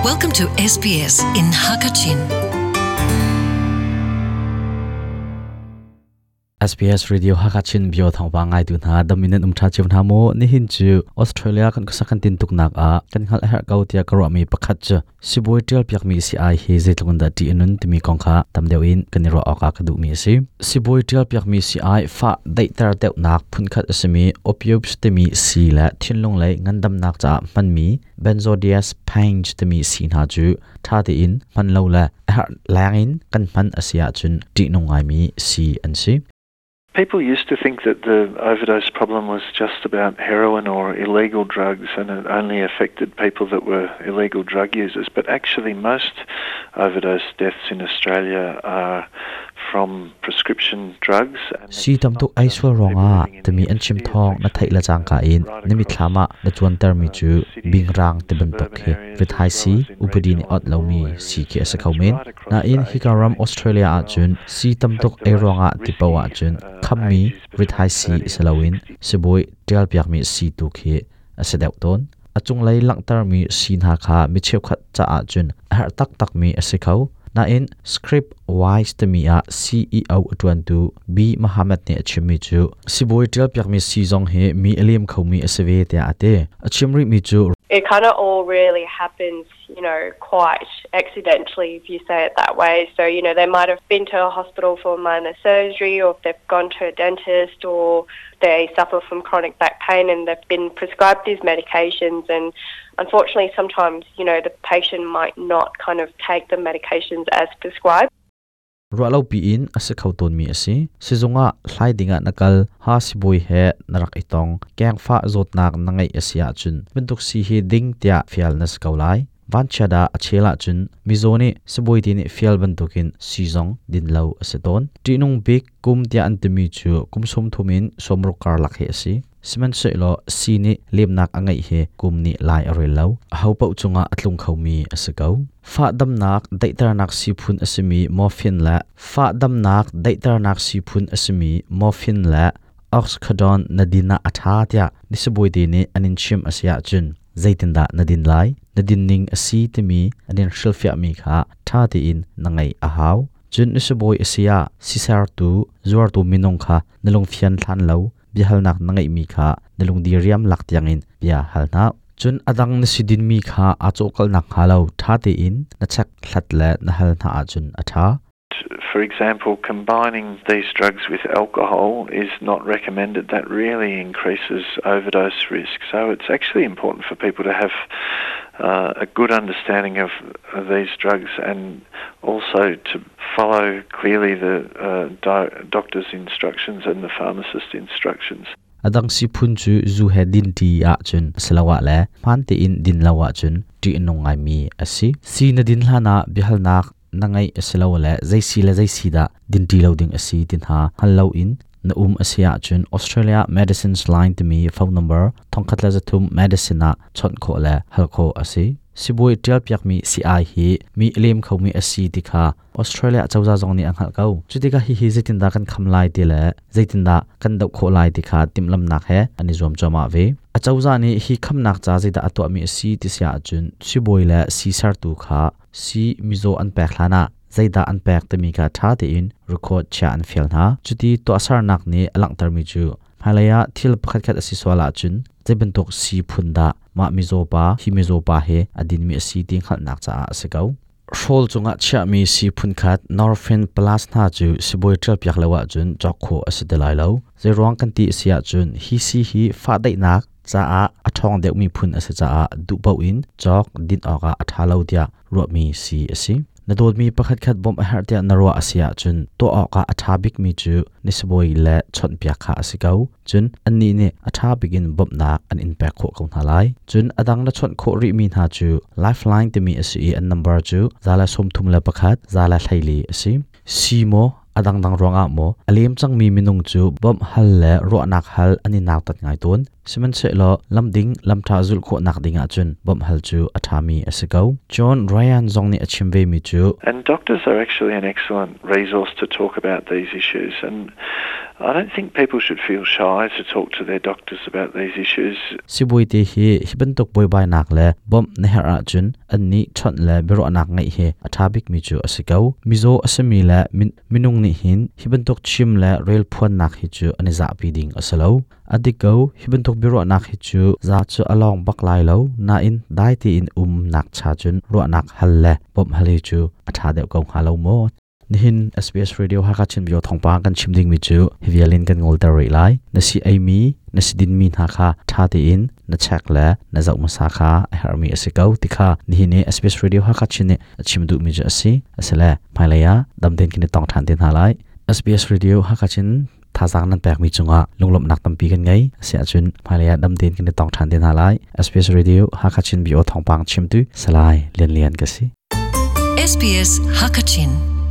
Welcome to SBS in Hakachin. SBS Radio Hakachin bio thawngpang ngai tu hna daminan um tha chiu hna mu nihin chu Australia kan khusak kan tin tuk nak a kan hngal her ko tia ka mi pakhat chu sibawi tial piak mi si ai hi zeitluk in dah ṭih a nun timi kong kha tam deuh in kan i ruah awkah ka duhmi a si. Sibawi tial piak mi si ai fah daihter deuhnak phunkhat a simi opioids timi sii le thinlung lei ngandamnak caah hmanmi benzodiazepines timi sii hna cu ṭha tein hman lo le a herh leng in kan hman a si ahcun ṭihnung ngaimi sii an si. People used to think that the overdose problem was just about heroin or illegal drugs and it only affected people that were illegal drug users. But actually, most overdose deaths in Australia are from prescription drugs. Si tam tuk ei sual ruangah timi an chim thawng na theih le cangka in na mitthlam ah na cuantermi cu bingrang ti bantuk khi rithai si upadi nih ot lomi si khi a si kho men. Nain hika ram Australia ahcun sii tamtuk ei ruangah ti paoh ahcun khammi rithai sii si loin sibawi ṭialpiakmi sii tu khi a si deuh tawn. A cunglei langhtermi sii hna kha mi cheukhat caah cun a herh taktakmi a si kho. Nain Script Wise timi ah CEO a ṭuantu B. Mohammed nih a chimmi cu sibawi ṭialpiakmi sii zong hi mi a lem khomi a si ve tiah a ti. A chim rihmi cu It kind of all really happens you know, quite accidentally, if you say it that way. So, you know, they might have been to a hospital for minor surgery or if they've gone to a dentist or they suffer from chronic back pain and they've been prescribed these medications and unfortunately sometimes, you know, the patient might not kind of take the medications as prescribed. Ruahlopi in a si kho tawnmi a si. Sizung ah hlai dingah na kal, ha sibawi he na rak i tong, kengfah zawtnak na ngeih a si ahcun bantuk si hi ding tiah fial na si ko lai. Vanchiat ah a chel ahcun mizaw nih sibawi te nih fial bantukin sii zong din lo a si tawn. Ṭihnung bik kum tiah an timi cu kum 30 in 60 karlak hi a si. Sihmanhsehlaw sii nih lemnak a ngeih hi kum nih lai a rel lo. Ahopaoh cungah a tlung khomi a si ko. Fahdamnak daihternak sii phun a simi morphine le fahdamnak daihternak sii phun a simi morphine le oxycodone na din ah a ṭha tiah nisabawite nih an in chimh a si ahcun zeitindah na din lai? Na din ning a si timi an in hrilhfiahmi kha ṭha tein na ngaih a hau. Cun nisabawi a si ah sisertu, zuartu minung kha na lungfian hlan lo biahalnak na ngeihmi kha na lungdiriam lak tiangin bia hal hna. Cun a dang na si dinmi kha aa cawhkalh nakhnga lo ṭha tein na check hlat le na hal hna ahcun a ṭha. For example, combining these drugs with alcohol is not recommended. That really increases overdose risk. So it's actually important for people to have uh, a good understanding of these drugs and also to follow clearly the uh, doctor's instructions and the pharmacist's instructions. A dang siphun cu zu he din ṭi ahcun asiloah le hmaan tein din lo ahcun ṭih a nung ngaimi a si. Si na din hlanah biahalnak na ngeih asilole zei si le zei si dah din ṭi lo ding a si ti hna hngal loin na um a si ahcun Australia Medicines Line timi phone number 1300 medicine ah chawnh khawh le hal khawh a si. Sibawi ṭialpiakmi sii-ai hi mi a lem khomi a si ti kha Australia cozah zong nih a hngalh ko. Cutikah hihi zeitindah kan kham lai ti le zeitindah kan doh khawh lai ti kha timhlamhnak he an i zuam cuahmah ve. A cozah nih hi khamnak ca zeidah a tuahmi a si ti si ahcun sibawi le sii sertu kha sii mizaw an pek hlanah zeidah an pek timi kha ṭha tein record chiah an fial hna. Cuti tuahsernak nih a langhtermi cu hmailei ah thil pakhatkhat a si sual ahcun zei bantuk sii phun dah mah mizaw pa hi mizaw pa hi a dinmi a si ti hngalhnak caah a si ko. Hrawl cungah chiahmi sii phunkhat Norfin Plus hna cu sibawi ṭialpiak lo ahcun cawk khawh a si ti lai lo. Zeiruang kan ti a si ahcun hi sii hi fahdaihnak caah a ṭhawng deuhmi phun a si caah duh paoh in cawk din awkah a ṭha lo tiah ruahmi sii a si. Na dawtmi pakhatkhat bawmh a herh tiah na ruah a si ahcun tuah awkah a ṭha bikmi cu na sibawi le chawnhpiak kha a si ko. Cun annih nih a ṭha bik in bawmhnak an in pek khawh ko hna lai. Cun a dang na chawnh khawh rihmi hna cu Lifeline timi a si i an number cu 131 114 a si. Si maw? A dangdang ruangah maw a lem cangmi minung cu bawmh hal le ruahnak hal an i nautat ngai tawn. Sihmanhsehlaw lamding lamṭha zulh khawhnak ding ahcun bawmh hal cu a ṭhami a si ko. John Ryan zong nih a chim vemi cu And doctors are actually an excellent resource to talk about these issues and I don't think people should feel shy to talk to their doctors about these issues. Sibawi te hi hi bantuk buaibainak le bawmh na herh ahcun annih chawnh le biaruahnak ngeih hi a ṭha bikmi cu a si ko. Mizaw a simi le minung nih hin hi bantuk chim le rel phuannak hi cu an i zahpi ding a si lo. A dik ko, hi bantuk biaruahnak hi cu za cu a lawng bak lai lo, nain dai tein umnak cha cun ruahnak hal le bawmh hal hi cu a ṭha deuh ko hnga lo maw? Nihin SBS Radio Hakha Chin Bio thawngpang kan chim dingmi cu hi vial in kan ngolter rih lai. Na si eimi, na si dinmi hna kha ṭha tein na check le na zoh hmasa kha a herhmi a si ko ti kha nihin i SBS Radio Hakha Chin nih a chim duhmi cu a si. Asile hmailei ah dam tein kan i tong ṭhan te hna lai. SBS Radio Hakha Chin thazaang nan pekmi cungah lunglawmhnak tampi kan ngei. Asiahcun hmailei ah dam tein kan i tong ṭhan te hna lai. SBS Radio Hakha Chin Bio thawngpang chimtu Salai Lian Lian ka si. SBS Hakachin.